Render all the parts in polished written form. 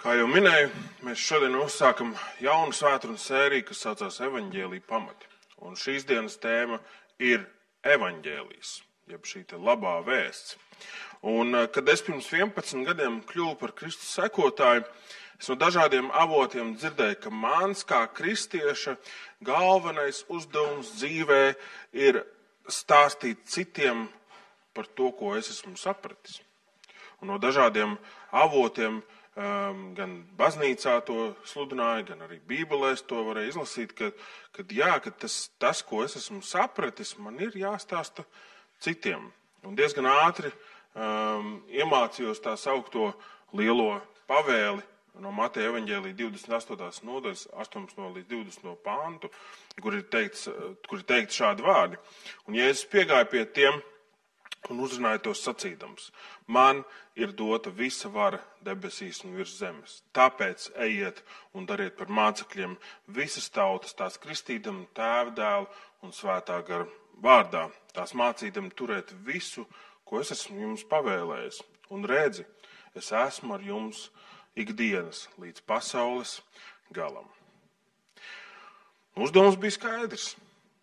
Kā jau minēju, mēs šodien uzsākam jaunu svētdienas sēriju, kas saucās Evaņģēlija pamati. Un šīs dienas tēma ir evaņģēlijs, jeb šī te labā vēsts. Un, kad es pirms 11 gadiem kļuvu par Kristus sekotāju, es no dažādiem avotiem dzirdēju, ka mans kā kristieša galvenais uzdevums dzīvē ir stāstīt citiem par to, ko es esmu sapratis. Un no dažādiem avotiem gan baznīcā to sludināja, gan arī Bībelēs to varēja izlasīt, ka tas, ko es esmu sapratis, man ir jāstāsta citiem. Un diezgan ātri iemācījos tā saukto lielo pavēli no Mateja evaņģēlija 28. nodaļas 18. līdz 20. pāntu, kur ir teikti šādi vārdi. Un Jēzus piegāja pie tiem un uzrunāja tos sacīdams: man ir dota visa vara debesīs un virs zemes. Tāpēc ejiet un dariet par mācekļiem visas tautas, tās kristīdam Tēva, Dēla un Svētā gara vārdā, tās mācīdam turēt visu, ko es esmu jums pavēlējis. Un redzi, es esmu ar jums ikdienas līdz pasaules galam. Uzdevums bija skaidrs.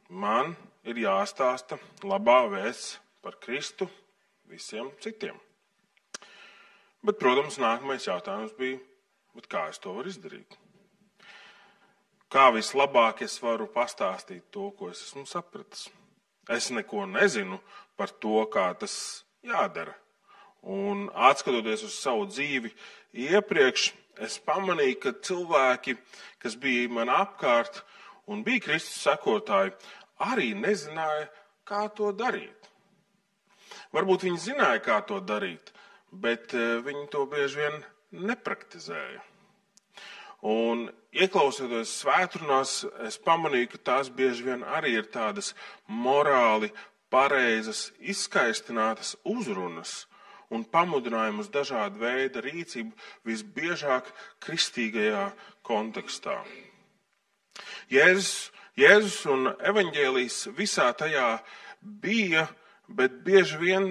Man ir jāstāsta labā vēsts par Kristu visiem citiem. Bet, protams, nākamais jautājums bija, kā es to varu izdarīt? Kā vislabāk es varu pastāstīt to, ko es esmu sapratis? Es neko nezinu par to, kā tas jādara. Un atskatoties uz savu dzīvi iepriekš, es pamanīju, ka cilvēki, kas bija man apkārt un bija Kristus sekotāji, arī nezināja, kā to darīt. Varbūt viņi zināja, kā to darīt, bet viņi to bieži vien nepraktizēja. Un ieklausoties svētdienas, es pamanīju, ka tās bieži vien arī ir tādas morāli pareizas, izskaistinātas uzrunas un pamudinājumus dažādu veidu rīcību, visbiežāk kristīgajā kontekstā. Jēzus un evaņģēlijs visā tajā bija, bet bieži vien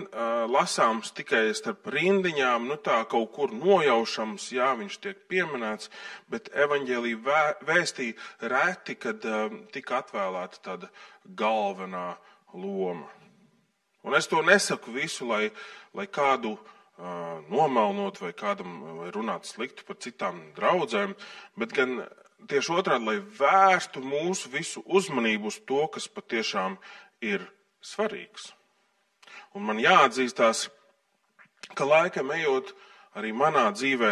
lasāms tikai starp rindiņām, tā kaut kur nojaušams, viņš tiek pieminēts, bet evaņģēlija vēstī reti, kad tika atvēlēta tāda galvenā loma. Un es to nesaku visu, lai kādu nomelnot vai kādam vai runāt sliktu par citām draudzēm, bet gan tieši otrādi, lai vērstu mūsu visu uzmanību uz to, kas patiešām ir svarīgs. Un man jāatzīstās, ka laikam ejot arī manā dzīvē,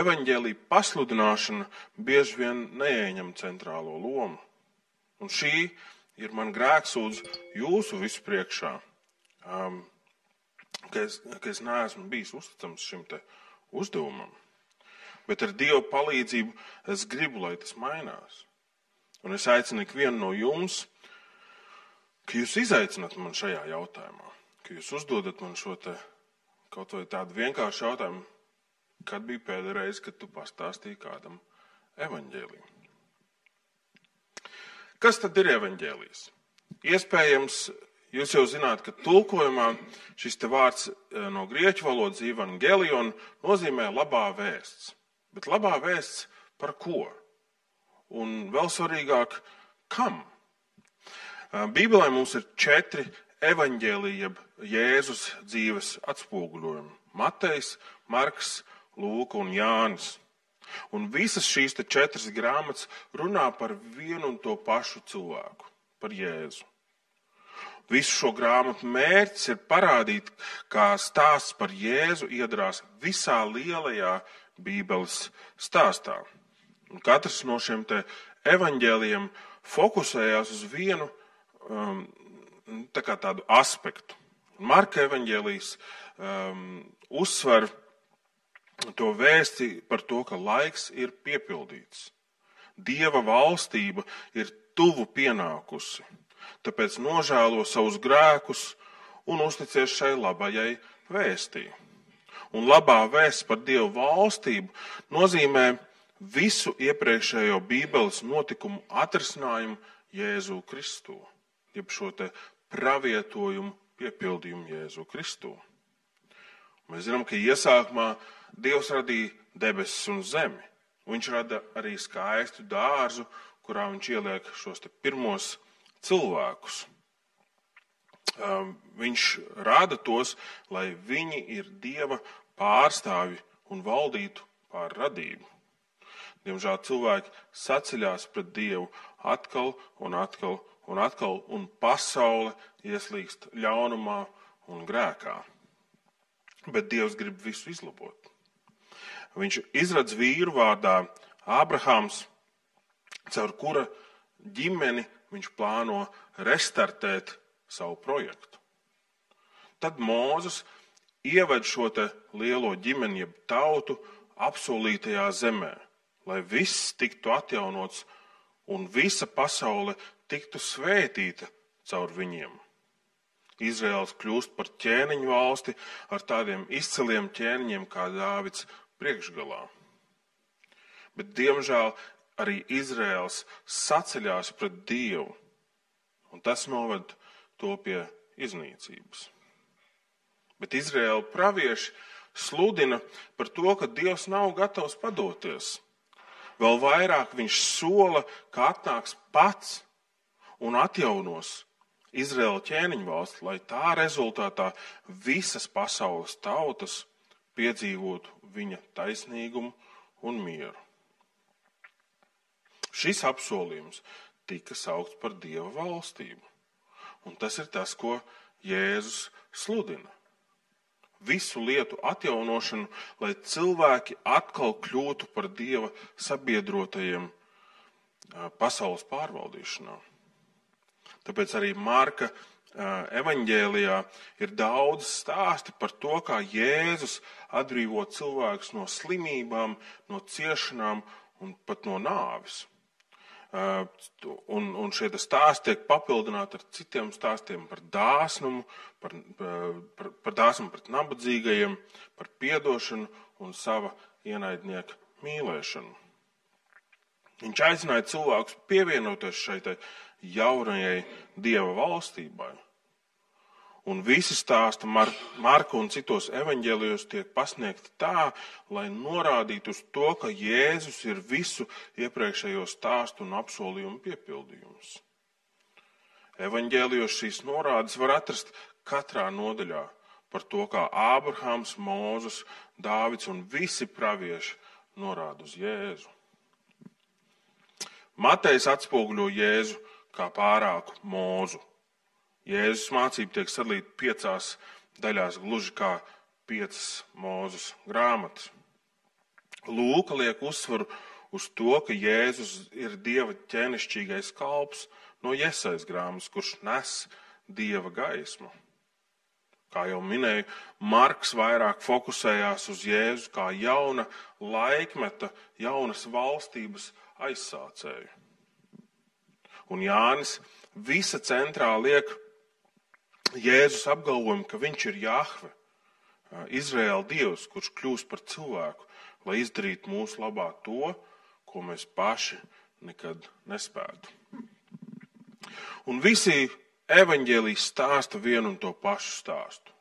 evaņģēlija pasludināšana bieži vien neieņem centrālo lomu. Un šī ir man grēksūdz jūsu visu priekšā, ka es neesmu bijis uzticams šim te uzdevumam. Bet ar Dieva palīdzību es gribu, lai tas mainās. Un es aicinu ikvienu no jums, ka jūs izaicināt man šajā jautājumā. Ka jūs uzdodat man šo te kaut vai tādu vienkāršu jautājumu, kad bija pēdējā reize, kad tu pastāstīji kādam evaņģēliju. Kas tad ir evaņģēlijs? Iespējams, jūs jau zināt, ka tulkojumā šis te vārds no grieķu valodas evangelion nozīmē labā vēsts. Bet labā vēsts par ko? Un vēl svarīgāk, kam? Bībelē mums ir 4 evaņģēlija, jeb Jēzus dzīves atspoguļojumi. Matejs, Marks, Lūka un Jānis. Un visas šīs 4 grāmatas runā par vienu un to pašu cilvēku, par Jēzu. Visu šo grāmatu mērķis ir parādīt, kā stāsts par Jēzu iedarās visā lielajā Bībeles stāstā. Un katrs no šiem te evaņģēlijiem fokusējās uz vienu tādu aspektu. Marka evaņģēlijs uzsver to vēsti par to, ka laiks ir piepildīts. Dieva valstība ir tuvu pienākusi, tāpēc nožēlo savus grēkus un uzticies šai labajai vēstī. Un labā vēsts par Dieva valstību nozīmē visu iepriekšējo Bībeles notikumu atrisinājumu Jēzu Kristū, jeb šo te pravietojumu piepildījumu Jēzu Kristū. Mēs zinām, ka iesākumā Dievs radīja debesis un zemi. Viņš rada arī skaistu dārzu, kurā viņš ieliek šos te pirmos cilvēkus. Viņš rada tos, lai viņi ir Dieva pārstāvi un valdītu pār radību. Diemžēl cilvēki saceļās pret Dievu atkal un atkal un atkal, un pasaule ieslīgst ļaunumā un grēkā. Bet Dievs grib visu izlabot. Viņš izradz vīru vārdā Ābrahāms, caur kura ģimeni viņš plāno restartēt savu projektu. Tad Mūzes ieved šo te lielo ģimeni, jeb tautu, apsolītajā zemē, lai viss tiktu atjaunots un visa pasaule tiktu svētīta caur viņiem. Izraels kļūst par ķēniņu valsti ar tādiem izciliem ķēniņiem kā Dāvids priekšgalā. Bet, diemžēl, arī Izraels saceļās pret Dievu, un tas noved to pie iznīcības. Bet Izraēla pravieši sludina par to, ka Dievs nav gatavs padoties. Vēl vairāk viņš sola, ka atnāks pats un atjaunos Izraēla ķēniņu valsti, lai tā rezultātā visas pasaules tautas piedzīvotu viņa taisnīgumu un mieru. Šis apsolījums tika saukts par Dieva valstību, un tas ir tas, ko Jēzus sludina. Visu lietu atjaunošanu, lai cilvēki atkal kļūtu par Dieva sabiedrotajiem pasaules pārvaldīšanā. Tāpēc arī Marka evaņģēlijā ir daudz stāsti par to, kā Jēzus atbrīvo cilvēkus no slimībām, no ciešanām un pat no nāves. Un šie stāsti tiek papildināti ar citiem stāstiem par dāsnumu, par dāsnumu pret nabadzīgajiem, par piedošanu un sava ienaidnieka mīlēšanu. Viņš aicināja cilvēkus pievienoties šai jaunajai Dieva valstībai. Un visi stāsti Marka un citos evaņģēlijos tiek pasniegti tā, lai norādītu uz to, ka Jēzus ir visu iepriekšējo stāstu un apsolījumu piepildījums. Evaņģēlijos šīs norādes var atrast katrā nodaļā par to, kā Ābrahāms, Mūzes, Dāvids un visi pravieši norāda uz Jēzu. Matejs atspoguļo Jēzu kā pārāku Mūzu. Jēzus mācība tiek sadalīta 5 daļās, gluži kā 5 Mūzes grāmatas. Lūka liek uzsvaru uz to, ka Jēzus ir Dieva ķēnišķīgais kalps no Jesajas grāmatas, kurš nes Dieva gaismu. Kā jau minēju, Marks vairāk fokusējās uz Jēzu kā jauna laikmeta, jaunas valstības aizsācēju. Un Jānis visa centrā liek Jēzus apgalvojumu, ka viņš ir Jahve, Izraēla Dievs, kurš kļūst par cilvēku, lai izdarītu mūsu labā to, ko mēs paši nekad nespētu. Un visi evaņģēliji stāsta vienu un to pašu stāstu.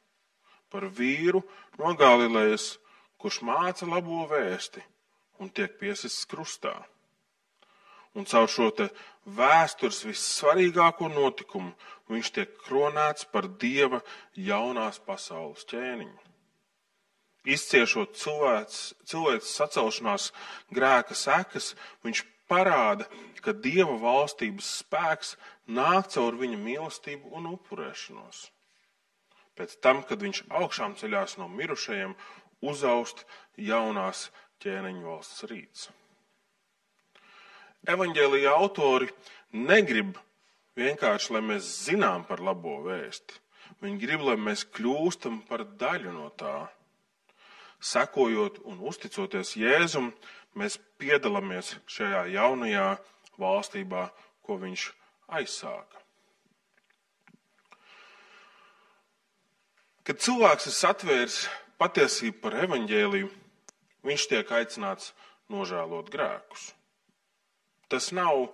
Par vīru no Galilejas, kurš māca labo vēsti un tiek piesists krustā. Un caur šo te vēstures vissvarīgāko notikumu viņš tiek kronēts par Dieva jaunās pasaules ķēniņu. Izciešot cilvēces sacelšanās grēka sekas, viņš parāda, ka Dieva valstības spēks nāk caur viņa mīlestību un upurēšanos. Pēc tam, kad viņš augšām ceļās no mirušajiem, uzaust jaunās ķēniņu valsts rīts. Evaņģēlija autori negrib vienkārši, lai mēs zinām par labo vēsti. Viņi grib, lai mēs kļūstam par daļu no tā. Sekojot un uzticoties Jēzum, mēs piedalāmies šajā jaunajā valstībā, ko viņš aizsāka. Kad cilvēks ir satvēris patiesību par evaņģēliju, viņš tiek aicināts nožēlot grēkus. Tas nav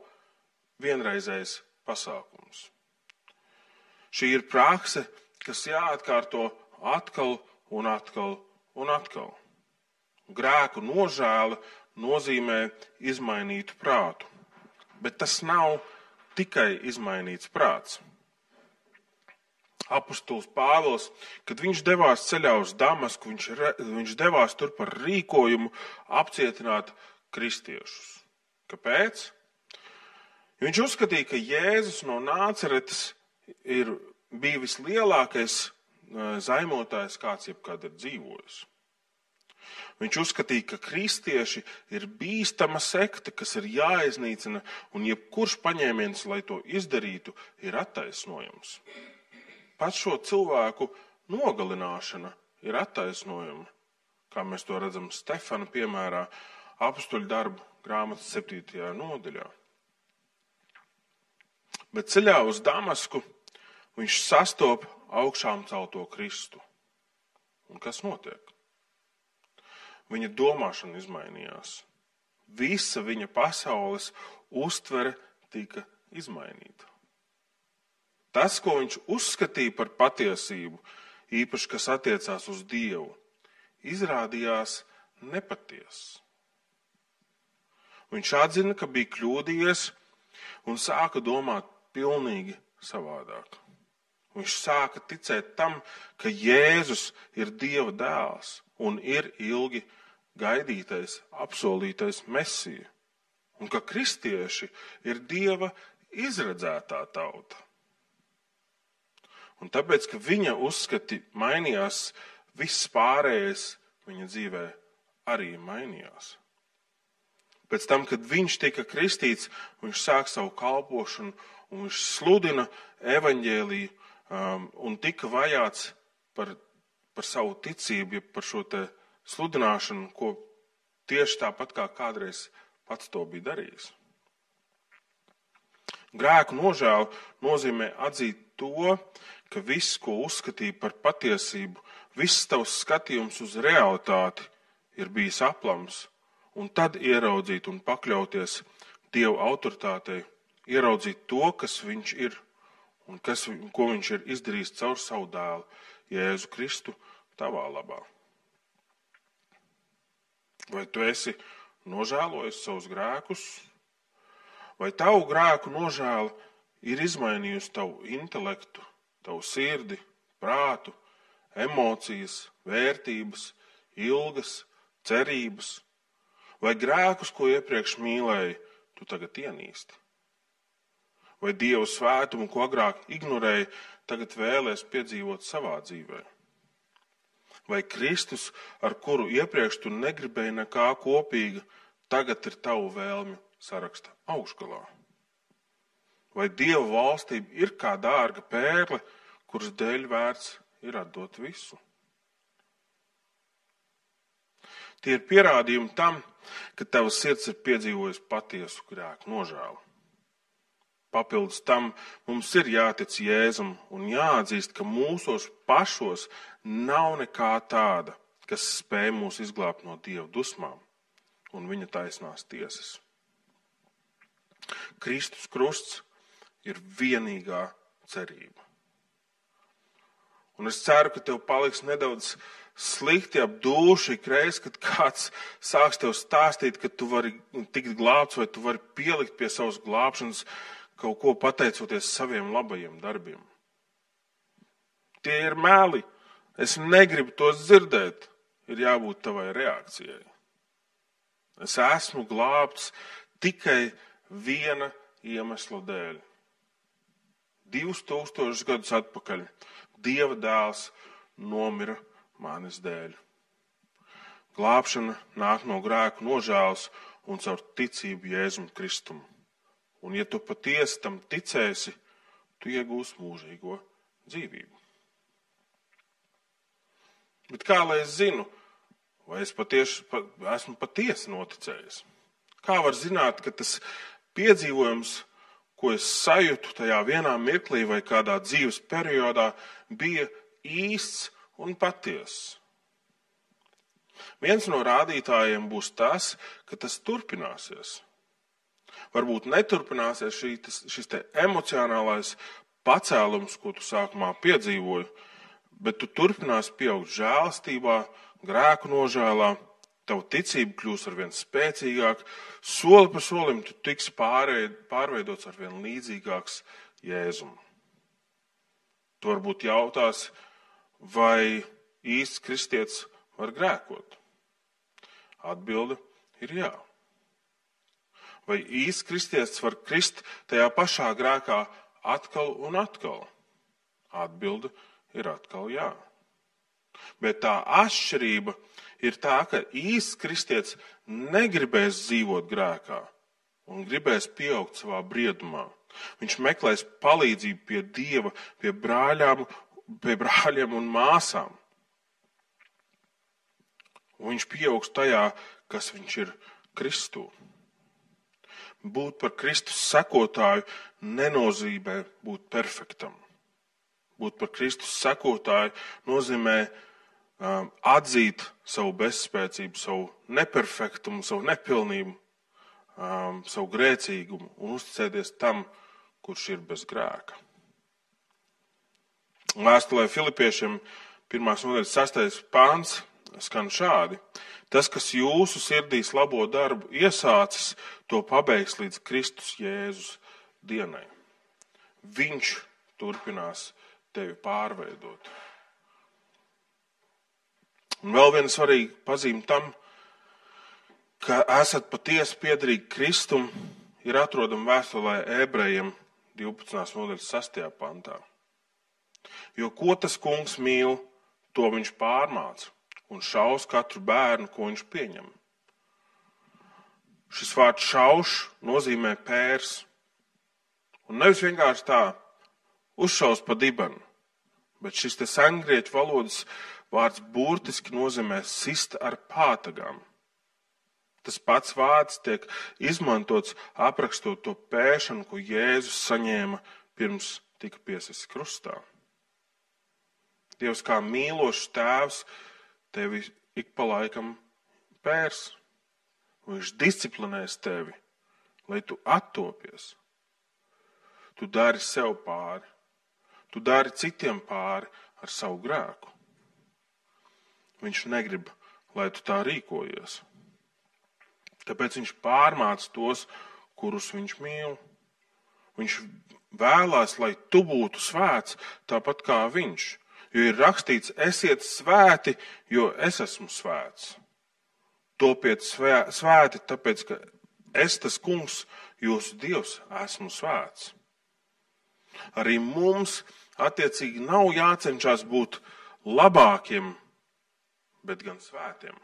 vienreizējs pasākums. Šī ir prakse, kas jāatkārto atkal un atkal un atkal. Grēku nožēla nozīmē izmainītu prātu, bet tas nav tikai izmainīts prāts. Apostols Pāvils, kad viņš devās ceļā uz Damasku, viņš devās tur par rīkojumu apcietināt kristiešus. Kāpēc? Viņš uzskatīja, ka Jēzus no Nāceretes bija vislielākais zaimotājs, kāds jebkad ir dzīvojis. Viņš uzskatīja, ka kristieši ir bīstama sekta, kas ir jāiznīcina, un jebkurš paņēmiens, lai to izdarītu, ir attaisnojams. Pat šo cilvēku nogalināšana ir attaisnojama, kā mēs to redzam Stefana piemērā, Apostoļu darbu grāmatas 7. nodaļā. Bet ceļā uz Damasku viņš sastop augšām celto Kristu. Un kas notiek? Viņa domāšana izmainījās. Visa viņa pasaules uztvere tika izmainīta. Tas, ko viņš uzskatīja par patiesību, īpaši, kas attiecās uz Dievu, izrādījās nepatiess. Viņš atzina, ka bija kļūdījies un sāka domāt pilnīgi savādāk. Viņš sāka ticēt tam, ka Jēzus ir Dieva dēls un ir ilgi gaidītais, apsolītais Mesija, un ka kristieši ir Dieva izredzētā tauta. Un tāpēc, ka viņa uzskati mainījās, viss pārējais viņa dzīvē arī mainījās. Pēc tam, kad viņš tika kristīts, viņš sāk savu kalpošanu un viņš sludina evaņģēliju un tika vajāts par savu ticību, par šo te sludināšanu, ko tieši tāpat kā kādreiz pats to bija darījis. Grēku nožēla nozīmē atzīt to, ka viss, ko uzskatīja par patiesību, viss tavs skatījums uz realitāti ir bijis aplams, un tad ieraudzīt un pakļauties Dieva autoritātei, ieraudzīt to, kas viņš ir un ko viņš ir izdarījis caur savu dēlu, Jēzu Kristu, tavā labā. Vai tu esi nožēlojis savus grēkus? Vai tavu grēku nožēla ir izmainījusi tavu intelektu, tavu sirdi, prātu, emocijas, vērtības, ilgas, cerības? Vai grēkus, ko iepriekš mīlēji, tu tagad ienīsti? Vai Dieva svētumu, ko agrāk ignorēji, tagad vēlies piedzīvot savā dzīvē? Vai Kristus, ar kuru iepriekš tu negribēji nekā kopīga, tagad ir tavu vēlmju saraksta augšgalā? Vai Dieva valstība ir kā dārga pērle, kuras dēļ vērts ir atdot visu? Tie ir pierādījumi tam, ka tava sirds ir piedzīvojusi patiesu grēku nožēlu. Papildus tam mums ir jātic Jēzum un jāatzīst, ka mūsos pašos nav nekā tāda, kas spēj mūs izglābt no Dieva dusmām un viņa taisnās tiesas. Kristus krusts ir vienīgā cerība. Un es ceru, ka tev paliks nedaudz slikti ap dūšu ikreiz, kad kāds sāks tev stāstīt, ka tu vari tikt glābts vai tu vari pielikt pie savas glābšanas kaut ko pateicoties saviem labajiem darbiem. Tie ir meli. Es negribu tos dzirdēt. Ir jābūt tavai reakcijai. Es esmu glābts tikai viena iemesla dēļ. 2000 gadus atpakaļ Dieva dēls nomira manis dēļ. Glābšana nāk no grēku nožēlas un caur ticību Jēzum Kristum. Un ja tu patiesi tam ticēsi, tu iegūsi mūžīgo dzīvību. Bet kā lai es zinu, vai es esmu patiesi noticējis? Kā var zināt, ka tas piedzīvojums, ko es sajūtu tajā vienā mirklī vai kādā dzīves periodā, bija īsts un patiess? Viens no rādītājiem būs tas, ka tas turpināsies. Varbūt neturpināsies šis te emocionālais pacēlums, ko tu sākumā piedzīvoji, bet tu turpināsi pieaugt žēlastībā, grēku nožēlā Tava ticība kļūs arvien spēcīgāk, soli pa solim tu tiksi pārveidots arvien līdzīgāks Jēzum. Tu varbūt jautās, vai īsts kristietis var grēkot? Atbilde ir jā. Vai īsts kristietis var krist tajā pašā grēkā atkal un atkal? Atbilde ir atkal jā. Bet tā atšķirība ir tā, ka īsts kristietis negribēs dzīvot grēkā un gribēs pieaugt savā briedumā. Viņš meklēs palīdzību pie Dieva, pie brāļiem un māsām. Un viņš pieaugs tajā, kas viņš ir Kristū. Būt par Kristus sekotāju nenozīmē būt perfektam. Būt par Kristus sekotāju nozīmē atzīt savu bezspēcību, savu neperfektumu, savu nepilnību, savu grēcīgumu un uzticēties tam, kurš ir bez grēka. Vēstulē Filipiešiem 1. nodaļas 6. pāns skan šādi. Tas, kas jūsu sirdīs labo darbu iesācis, to pabeigs līdz Kristus Jēzus dienai. Viņš turpinās tevi pārveidot. Un vēl viena svarīga pazīme tam, ka esat patiesi piederīgi Kristum, ir atrodama vēstulē Ebrejiem 12. nodaļas 6. pantā. Jo ko tas kungs mīl, to viņš pārmāca un šaus katru bērnu, ko viņš pieņem. Šis vārds šauš nozīmē pērs. Un nevis vienkārši tā uzšaus pa dibenu, bet šis te sengrieķu valodas vārds burtiski nozīmē sist ar pātagām. Tas pats vārds tiek izmantots aprakstot to pēšanu, ko Jēzus saņēma pirms tika piesists krustā. Dievs kā mīlošs tēvs tevi ik pa laikam pērs. Viņš disciplinēs tevi, lai tu attopies. Tu dari sev pāri. Tu dari citiem pāri ar savu grēku. Viņš negrib, lai tu tā rīkojies. Tāpēc viņš pārmāca tos, kurus viņš mīl. Viņš vēlās, lai tu būtu svēts tāpat kā viņš. Jo ir rakstīts, esiet svēti, jo es esmu svēts. Topiet svēti, tāpēc, ka es, tas kungs, jūsu Dievs, esmu svēts. Arī mums attiecīgi nav jācenšas būt labākiem, bet gan svētiem.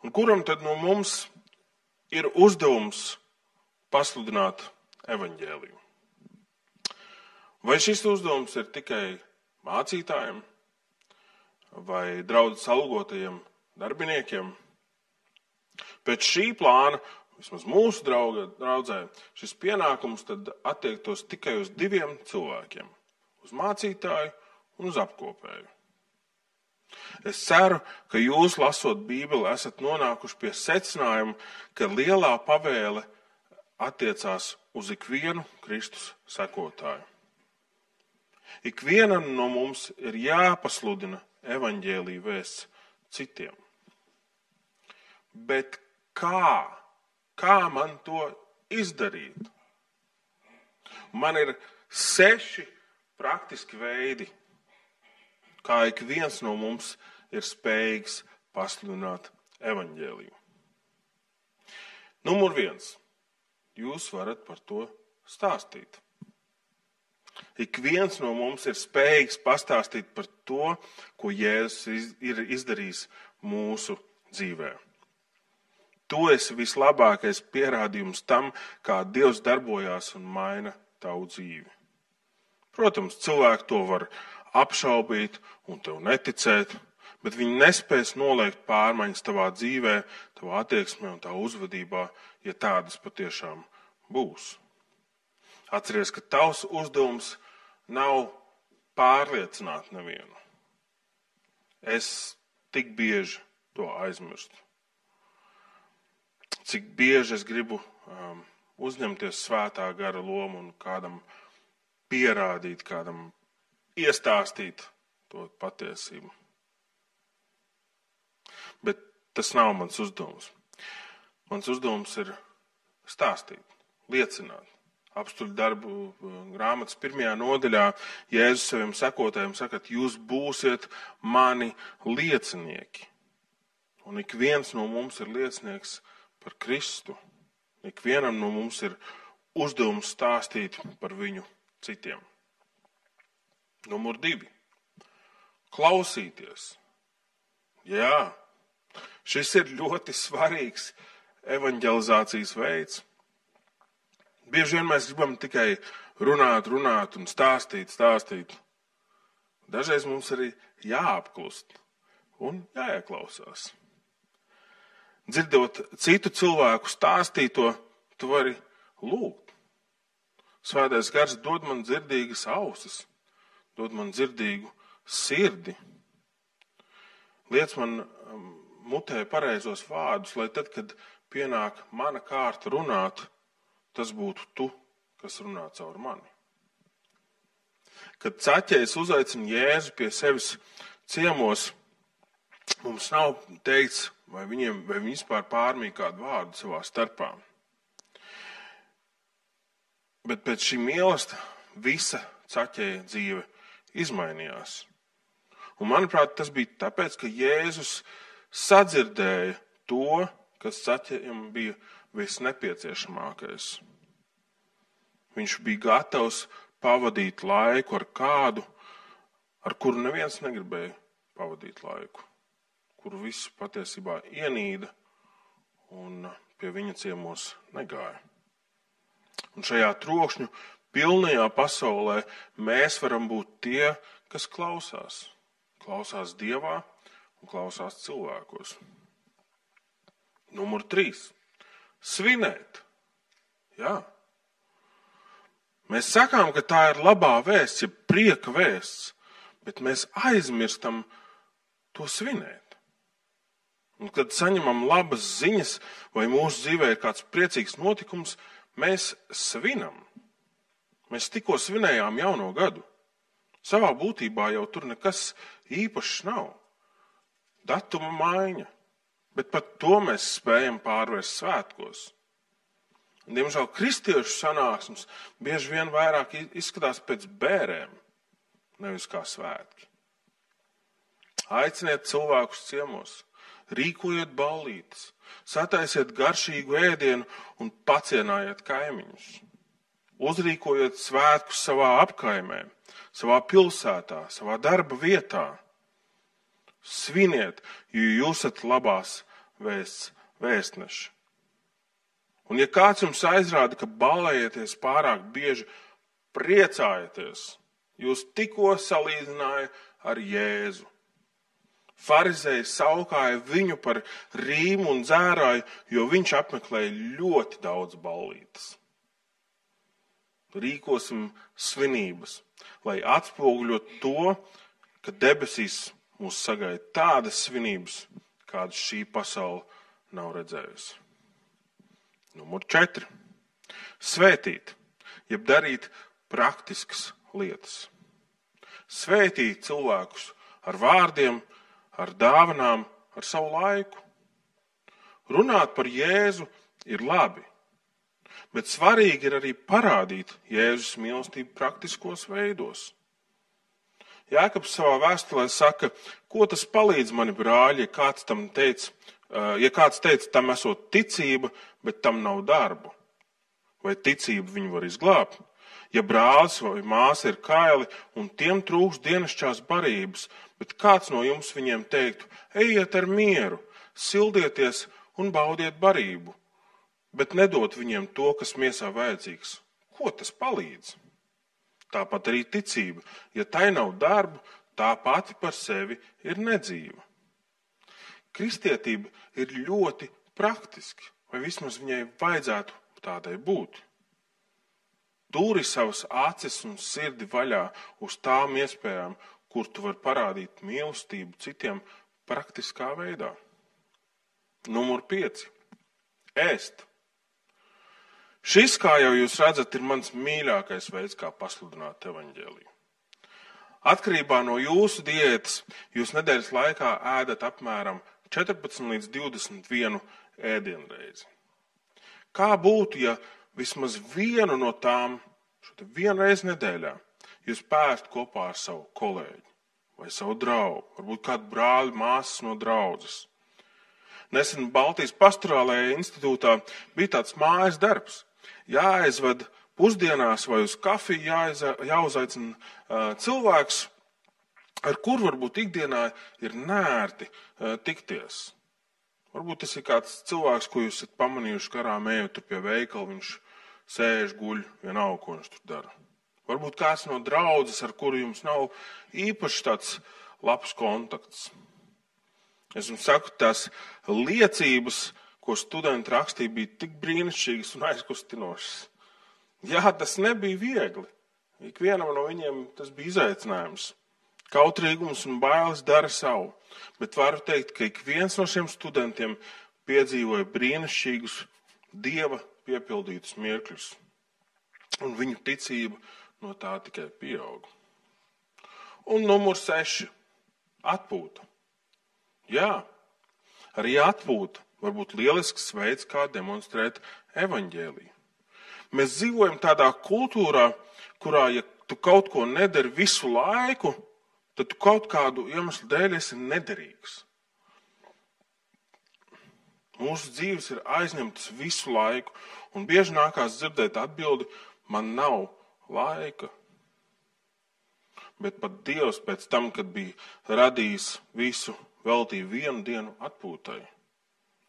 Un kuram tad no mums ir uzdevums pasludināt evaņģēliju? Vai šis uzdevums ir tikai mācītājiem vai draudzes algotajiem darbiniekiem? Pēc šī plāna, vismaz mūsu draudzē, šis pienākums tad attiektos tikai uz 2 cilvēkiem – uz mācītāju un uz apkopēju. Es ceru, ka jūs, lasot Bībeli, esat nonākuši pie secinājuma, ka lielā pavēle attiecās uz ikvienu Kristus sekotāju. Ikvienam no mums ir jāpasludina evaņģēlija vēsts citiem. Bet kā? Kā man to izdarīt? Man ir 6 praktiski veidi, kā ik viens no mums ir spējīgs pasludināt evaņģēliju. Numur 1. Jūs varat par to stāstīt. Ik viens no mums ir spējīgs pastāstīt par to, ko Jēzus ir izdarījis mūsu dzīvē. Tu esi vislabākais pierādījums tam, kā Dievs darbojās un maina tavu dzīvi. Protams, cilvēki to var apšaubīt un tev neticēt, bet viņi nespēs noliegt pārmaiņas tavā dzīvē, tavā attieksmē un tavā uzvedībā, ja tādas patiešām būs. Atceries, ka tavs uzdevums nav pārliecināt nevienu. Es tik bieži to aizmirstu. Cik bieži es gribu uzņemties svētā gara lomu un kādam pierādīt, kādam iestāstīt to patiesību. Bet tas nav mans uzdevums. Mans uzdevums ir stāstīt, liecināt. Apstuļu darbu grāmatas 1. nodaļā Jēzus saviem sekotājiem saka, ka jūs būsiet mani liecinieki. Un ik viens no mums ir liecinieks par Kristu. Ik vienam no mums ir uzdevums stāstīt par viņu citiem. Numur 2. Klausīties. Jā, šis ir ļoti svarīgs evanģelizācijas veids. Bieži vien mēs gribam tikai runāt un stāstīt. Dažreiz mums arī jāapklust un jāieklausās. Dzirdot citu cilvēku stāstīto, tu vari lūgt. Svētais gars dod man dzirdīgas ausis, dod man dzirdīgu sirdi. Liec man mutē pareizos vārdus, lai tad, kad pienāk mana kārta runāt, tas būtu tu, kas runā caur mani. Kad Caķejs uzaicina Jēzu pie sevis ciemos, mums nav teikts, vai viņi vispār pārmīja kādu vārdu savā starpā. Bet pēc šī mīlesta visa Caķeja dzīve izmainījās. Un manuprāt, tas bija tāpēc, ka Jēzus sadzirdēja to, kas Caķejam bija visnepieciešamākais. Viņš bija gatavs pavadīt laiku ar kādu, ar kuru neviens negribēja pavadīt laiku, kuru visu patiesībā ienīda un pie viņa ciemos negāja. Un šajā trokšņu pilnajā pasaulē mēs varam būt tie, kas klausās. Klausās Dievā un klausās cilvēkos. Numur 3. Svinēt. Jā. Mēs sakām, ka tā ir labā vēsts, ja prieka vēsts, bet mēs aizmirstam to svinēt. Un kad saņemam labas ziņas vai mūsu dzīvē ir kāds priecīgs notikums, mēs svinam. Mēs tikko svinējām jauno gadu. Savā būtībā jau tur nekas īpašs nav. Datuma maiņa, bet pat to mēs spējam pārvērst svētkos. Diemžēl kristiešu sanāksmes bieži vien vairāk izskatās pēc bērēm, nevis kā svētki. Aiciniet cilvēkus ciemos, rīkojiet ballītes, sataisiet garšīgu ēdienu un pacienājiet kaimiņus. Uzrīkojiet svētkus savā apkaimē, savā pilsētā, savā darba vietā. Sviniet, jo jūs esat labās vēsts vēstneši. Un ja kāds jums aizrāda, ka ballējieties pārāk bieži, priecājieties, jūs tikko salīdzināja ar Jēzu. Farizēji saukāja viņu par rīmu un dzērāju, jo viņš apmeklēja ļoti daudz ballītes. Rīkosim svinības, lai atspoguļot to, ka debesīs mūs sagaida tādas svinības, kādas šī pasaule nav redzējusi. Numur 4. Svētīt, jeb darīt praktiskas lietas. Svētīt cilvēkus ar vārdiem, ar dāvanām, ar savu laiku. Runāt par Jēzu ir labi, bet svarīgi ir arī parādīt Jēzus mīlestību praktiskos veidos. Jākabs savā vēstulē saka, ko tas palīdz mani brāļi, ja kāds teica, tam esot ticība, bet tam nav darbu. Vai ticību viņu var izglābt? Ja brālis vai māsa ir kaili un tiem trūkst dienasčās barības, bet kāds no jums viņiem teiktu, ejiet ar mieru, sildieties un baudiet barību, bet nedot viņiem to, kas miesā vajadzīgs. Ko tas palīdz? Tāpat arī ticība. Ja tai nav darbu, tā pati par sevi ir nedzīva. Kristietība ir ļoti praktiski, vai vismaz viņai vajadzētu tādai būt. Tūri savas acis un sirdi vaļā uz tām iespējām, kur tu vari parādīt mīlestību citiem praktiskā veidā. Numur 5. Ēst. Šis, kā jau jūs redzat, ir mans mīļākais veids, kā pasludināt evaņģēliju. Atkarībā no jūsu diētas jūs nedēļas laikā ēdat apmēram 14 līdz 21 ēdienreizi. Kā būtu, ja vismaz vienu no tām, vienu reizi nedēļā, jūs pērstu kopā ar savu kolēģi vai savu draugu, varbūt kādu brāli, māsas no draudzes. Nesen Baltijas pastorālajā institūtā bija tāds mājas darbs. Jāaizved pusdienās vai uz kafiju jāuzaicina cilvēks, ar kuru varbūt ikdienā ir nērti tikties. Varbūt tas ir kāds cilvēks, ko jūs esat pamanījuši garām ejot tur pie veikala, viņš sēž, guļ, vienalga, ko viņš tur dara. Varbūt kāds no draudzes, ar kuru jums nav īpaši tāds labs kontakts. Es jums saku, tās liecības, ko studenti rakstīja, bija tik brīnišķīgas un aizkustinošas. Jā, tas nebija viegli. Ikvienam no viņiem tas bija izaicinājums. Kautrīgums un bailes dara savu, bet varu teikt, ka ik viens no šiem studentiem piedzīvoja brīnišķīgus Dieva piepildītus mirkļus, un viņu ticība no tā tikai pieauga. Un numur 6 - atpūta. Jā, arī atpūta var būt lielisks veids, kā demonstrēt evaņģēliju. Mēs dzīvojam tādā kultūrā, kurā, ja tu kaut ko nedari visu laiku, tad tu kaut kādu iemeslu dēļ esi nederīgs. Mūsu dzīves ir aizņemtas visu laiku, un bieži nākās dzirdēt atbildi, man nav laika. Bet pat Dievs pēc tam, kad bija radījis visu, veltīja vienu dienu atpūtai.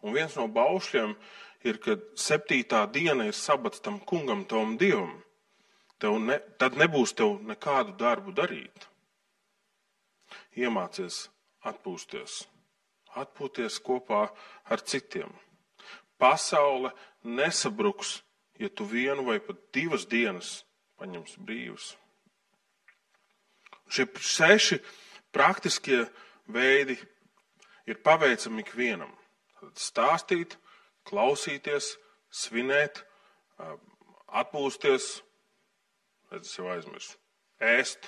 Un viens no baušļiem ir, ka 7. diena ir sabats tam kungam, tavam Dievam. Tad nebūs tev nekādu darbu darīt. Iemācies atpūsties. Atpūties kopā ar citiem. Pasaule nesabruks, ja tu vienu vai pat 2 dienas paņemsi brīvas. Šie 6 praktiskie veidi ir paveicami ikvienam. Stāstīt, klausīties, svinēt, atpūsties, es jau aizmirsu, ēst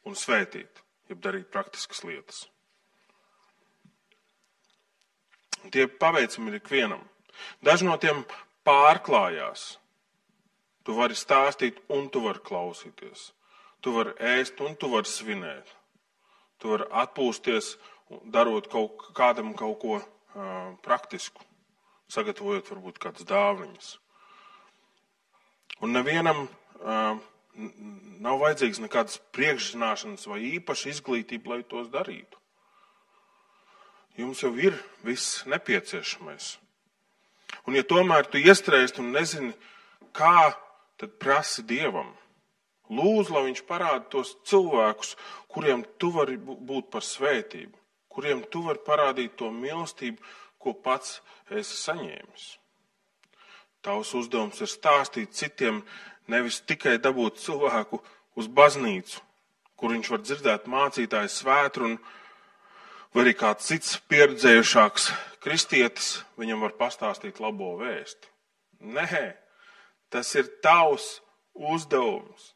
un svētīt, jeb darīt praktiskas lietas. Tie paveicami ir ikvienam. Daži no tiem pārklājās. Tu vari stāstīt un tu vari klausīties. Tu vari ēst un tu vari svinēt. Tu vari atpūsties, darot kādam kaut ko praktisku, sagatavojot varbūt kādas dāvanas. Un nevienam nav vajadzīgs nekādas priekšzināšanas vai īpaša izglītība, lai tos darītu. Jums jau ir viss nepieciešamais. Un ja tomēr tu iestrēgst un nezini, kā, tad prasi Dievam. Lūdzu, lai viņš parāda tos cilvēkus, kuriem tu vari būt par svētību, kuriem tu vari parādīt to mīlestību, ko pats esi saņēmis. Tavs uzdevums ir stāstīt citiem, nevis tikai dabūt cilvēku uz baznīcu, kur viņš var dzirdēt mācītāju svētru, vai arī kāds cits pieredzējušāks kristietis viņam var pastāstīt labo vēsti. Nē, tas ir tavs uzdevums.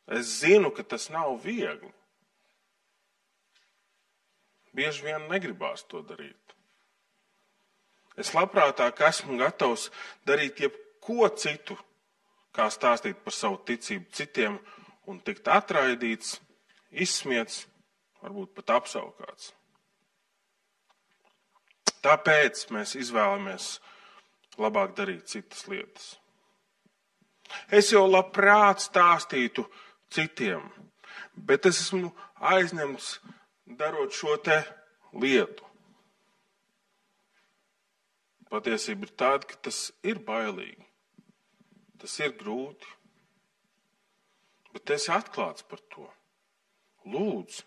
Es zinu, ka tas nav viegli. Bieži vien negribās to darīt. Es labprātāk esmu gatavs darīt jebko citu, kā stāstīt par savu ticību citiem un tikt atraidīts, izsmiets, varbūt pat apsaukāts. Tāpēc mēs izvēlamies labāk darīt citas lietas. Es jau labprāt stāstītu citiem, bet es esmu aizņemts darot šo te lietu. Patiesība ir tāda, ka tas ir bailīgi, tas ir grūti, bet esi atklāts par to. Lūdzu,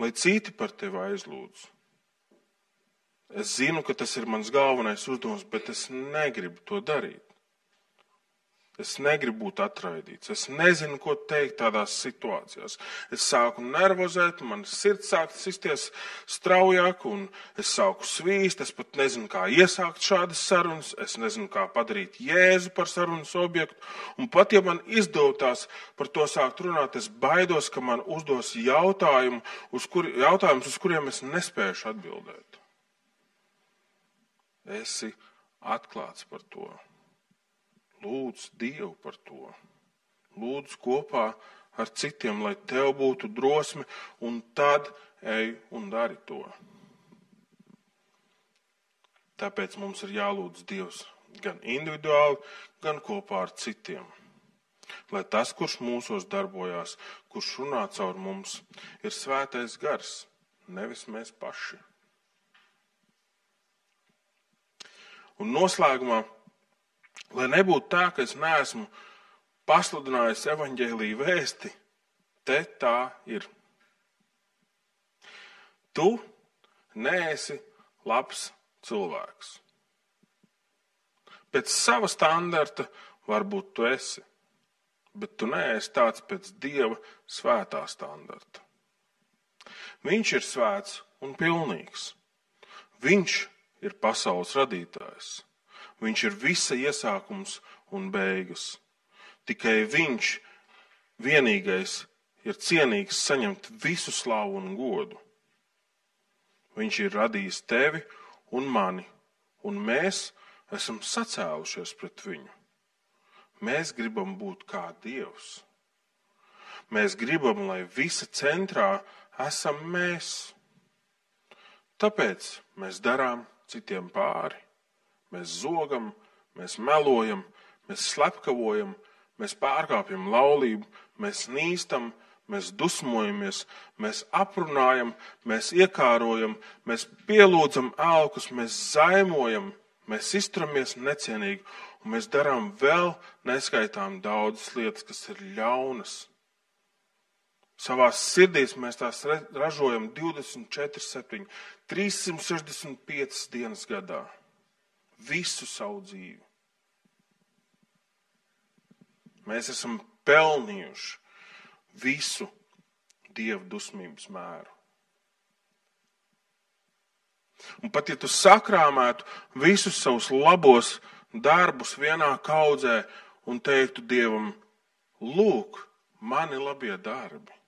lai citi par tevi aizlūdz. Es zinu, ka tas ir mans galvenais uzdevums, bet es negribu to darīt. Es negribu būt atraidīts. Es nezinu, ko teikt tādās situācijās. Es sāku nervozēt, man sirds sāk sisties straujāk, un es sāku svīst. Es pat nezinu, kā iesākt šādas sarunas. Es nezinu, kā padarīt Jēzu par sarunas objektu. Un pat, ja man izdotās par to sākt runāt, es baidos, ka man uzdos jautājumus, uz kuriem es nespēšu atbildēt. Esi atklāts par to. Lūdz Dievu par to. Lūdz kopā ar citiem, lai tev būtu drosme, un tad ej un dari to. Tāpēc mums ir jālūdz Dievs gan individuāli, gan kopā ar citiem. Lai tas, kurš mūsos darbojās, kurš runā caur mums, ir svētais gars, nevis mēs paši. Un noslēgumā, lai nebūtu tā, ka es neesmu pasludinājis evaņģēliju vēsti, te tā ir. Tu neesi labs cilvēks. Pēc sava standarta varbūt tu esi, bet tu neesi tāds pēc Dieva svētā standarta. Viņš ir svēts un pilnīgs. Viņš ir pasaules radītājs. Viņš ir visa iesākums un beigas. Tikai viņš vienīgais ir cienīgs saņemt visu slavu un godu. Viņš ir radījis tevi un mani, un mēs esam sacēlušies pret viņu. Mēs gribam būt kā Dievs. Mēs gribam, lai visa centrā esam mēs. Tāpēc mēs darām citiem pāri. Mēs zogam, mēs melojam, mēs slepkavojam, mēs pārkāpjam laulību, mēs nīstam, mēs dusmojamies, mēs aprunājam, mēs iekārojam, mēs pielūdzam elkus, mēs zaimojam, mēs izturamies necienīgi, un mēs darām vēl neskaitām daudzas lietas, kas ir ļaunas. Savās sirdīs mēs tās ražojam 24/7, 365 dienas gadā. Visu savu dzīvi. Mēs esam pelnījuši visu Dieva dusmības mēru. Un pat ja tu sakrāmētu visus savus labos darbus vienā kaudzē un teiktu Dievam, lūk, mani labie darbi.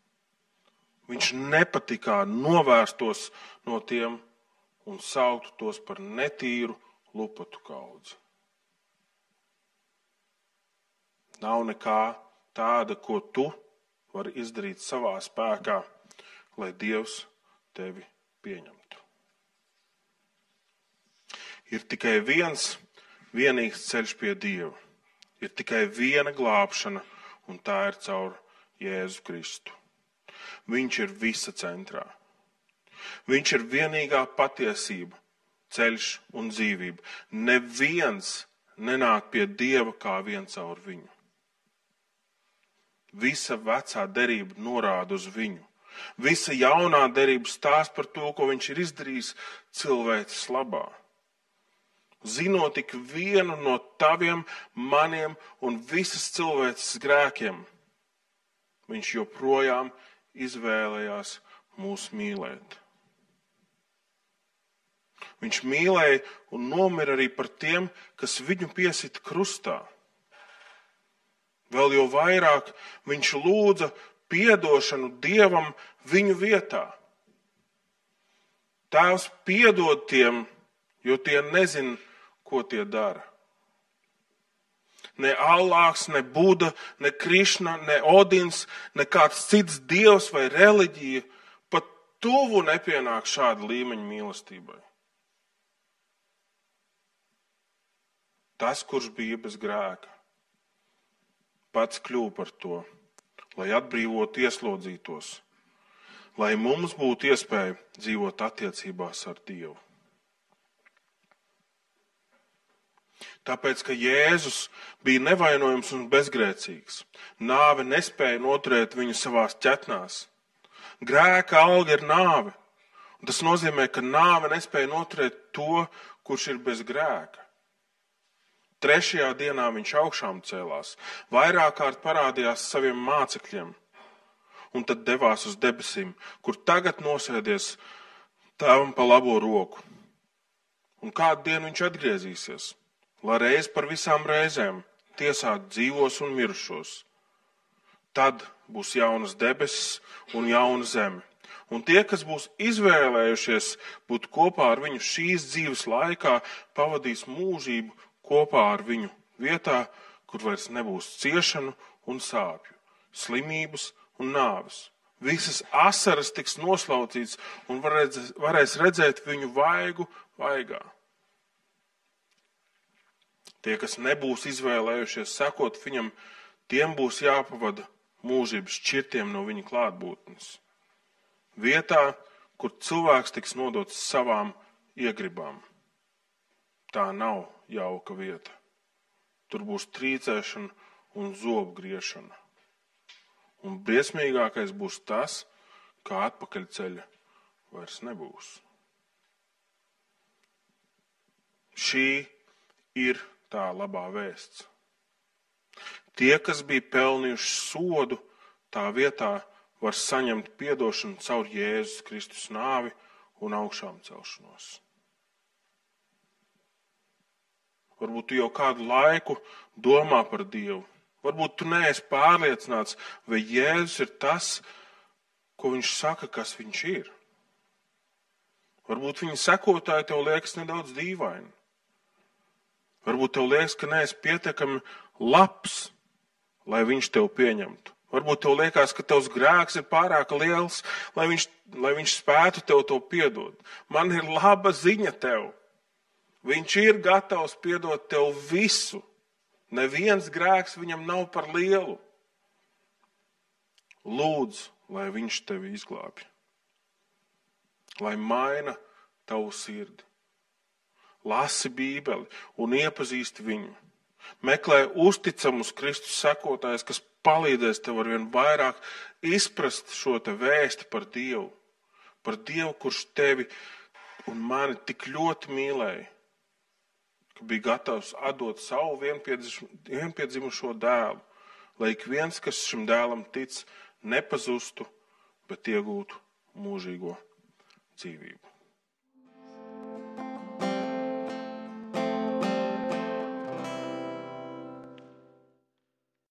Viņš nepatikā novērstos no tiem un sauktu tos par netīru lupatu kaudzi. Nav nekā tāda, ko tu vari izdarīt savā spēkā, lai Dievs tevi pieņemtu. Ir tikai viens vienīgs ceļš pie Dieva. Ir tikai viena glābšana, un tā ir caur Jēzu Kristu. Viņš ir visa centrā. Viņš ir vienīgā patiesība, ceļš un dzīvība. Neviens nenāk pie Dieva kā vien caur viņu. Visa vecā derība norāda uz viņu. Visa jaunā derība stāsta par to, ko viņš ir izdarījis cilvēces labā. Zinot tik vienu no taviem, maniem un visas cilvēces grēkiem, viņš joprojām izvēlējās mūs mīlēt. Viņš mīlēja un nomira arī par tiem, kas viņu piesita krustā. Vēl jau vairāk viņš lūdza piedošanu Dievam viņu vietā. Tēvs piedod tiem, jo tie nezin, ko tie dara. Ne Allāhs, ne Buda, ne Krišna, ne Odins, ne kāds cits dievs vai reliģija pat tuvu nepienāk šāda līmeņa mīlestībai. Tas, kurš bija bez grēka, pats kļuva par to, lai atbrīvotu ieslodzītos, lai mums būtu iespēja dzīvot attiecībās ar Dievu. Tāpēc, ka Jēzus bija nevainojams un bezgrēcīgs, nāve nespēja noturēt viņu savās ķetnās. Grēka alga ir nāve, un tas nozīmē, ka nāve nespēja noturēt to, kurš ir bez grēka. 3. dienā viņš augšām cēlās, vairāk kārt parādījās saviem mācekļiem, un tad devās uz debesīm, kur tagad nosēdies Tēvam pa labo roku. Un kādu dienu viņš atgriezīsies, lai reiz par visām reizēm tiesātu dzīvos un mirušos. Tad būs jaunas debesis un jauna zeme. Un tie, kas būs izvēlējušies būt kopā ar viņu šīs dzīves laikā, pavadīs mūžību kopā ar viņu vietā, kur vairs nebūs ciešanu un sāpju, slimības un nāves. Visas asaras tiks noslaucīts un varēs redzēt viņu vaigu vaigā. Tie, kas nebūs izvēlējušies sekot viņam, tiem būs jāpavada mūžības šķirtiem no viņa klātbūtnes. Vietā, kur cilvēks tiks nodots savām iegribām. Tā nav jauka vieta. Tur būs trīcēšana un zobu griešana. Un briesmīgākais būs tas, kā atpakaļceļa vairs nebūs. Šī ir tā labā vēsts. Tie, kas bija pelnījuši sodu, tā vietā var saņemt piedošanu caur Jēzus Kristus nāvi un augšām celšanos. Varbūt tu jau kādu laiku domā par Dievu. Varbūt tu neesi pārliecināts, vai Jēzus ir tas, ko viņš saka, kas viņš ir. Varbūt viņa sekotāji tev liekas nedaudz dīvaini. Varbūt tev liekas, ka neesi pietiekami labs, lai viņš tev pieņemtu. Varbūt tev liekas, ka tavs grēks ir pārāk liels, lai viņš spētu tev to piedot. Man ir laba ziņa tev. Viņš ir gatavs piedot tev visu. Neviens grēks viņam nav par lielu. Lūdzu, lai viņš tevi izglābj. Lai maina tavu sirdi. Lasi Bībeli un iepazīsti viņu. Meklē uzticamus Kristus sekotājus, kas palīdzēs tev arvien vairāk izprast šo te vēsti par Dievu. Par Dievu, kurš tevi un mani tik ļoti mīlēja, ka bija gatavs atdot savu vienpiedzimušo dēlu, lai ik viens, kas šim dēlam tic, nepazustu, bet iegūtu mūžīgo dzīvību.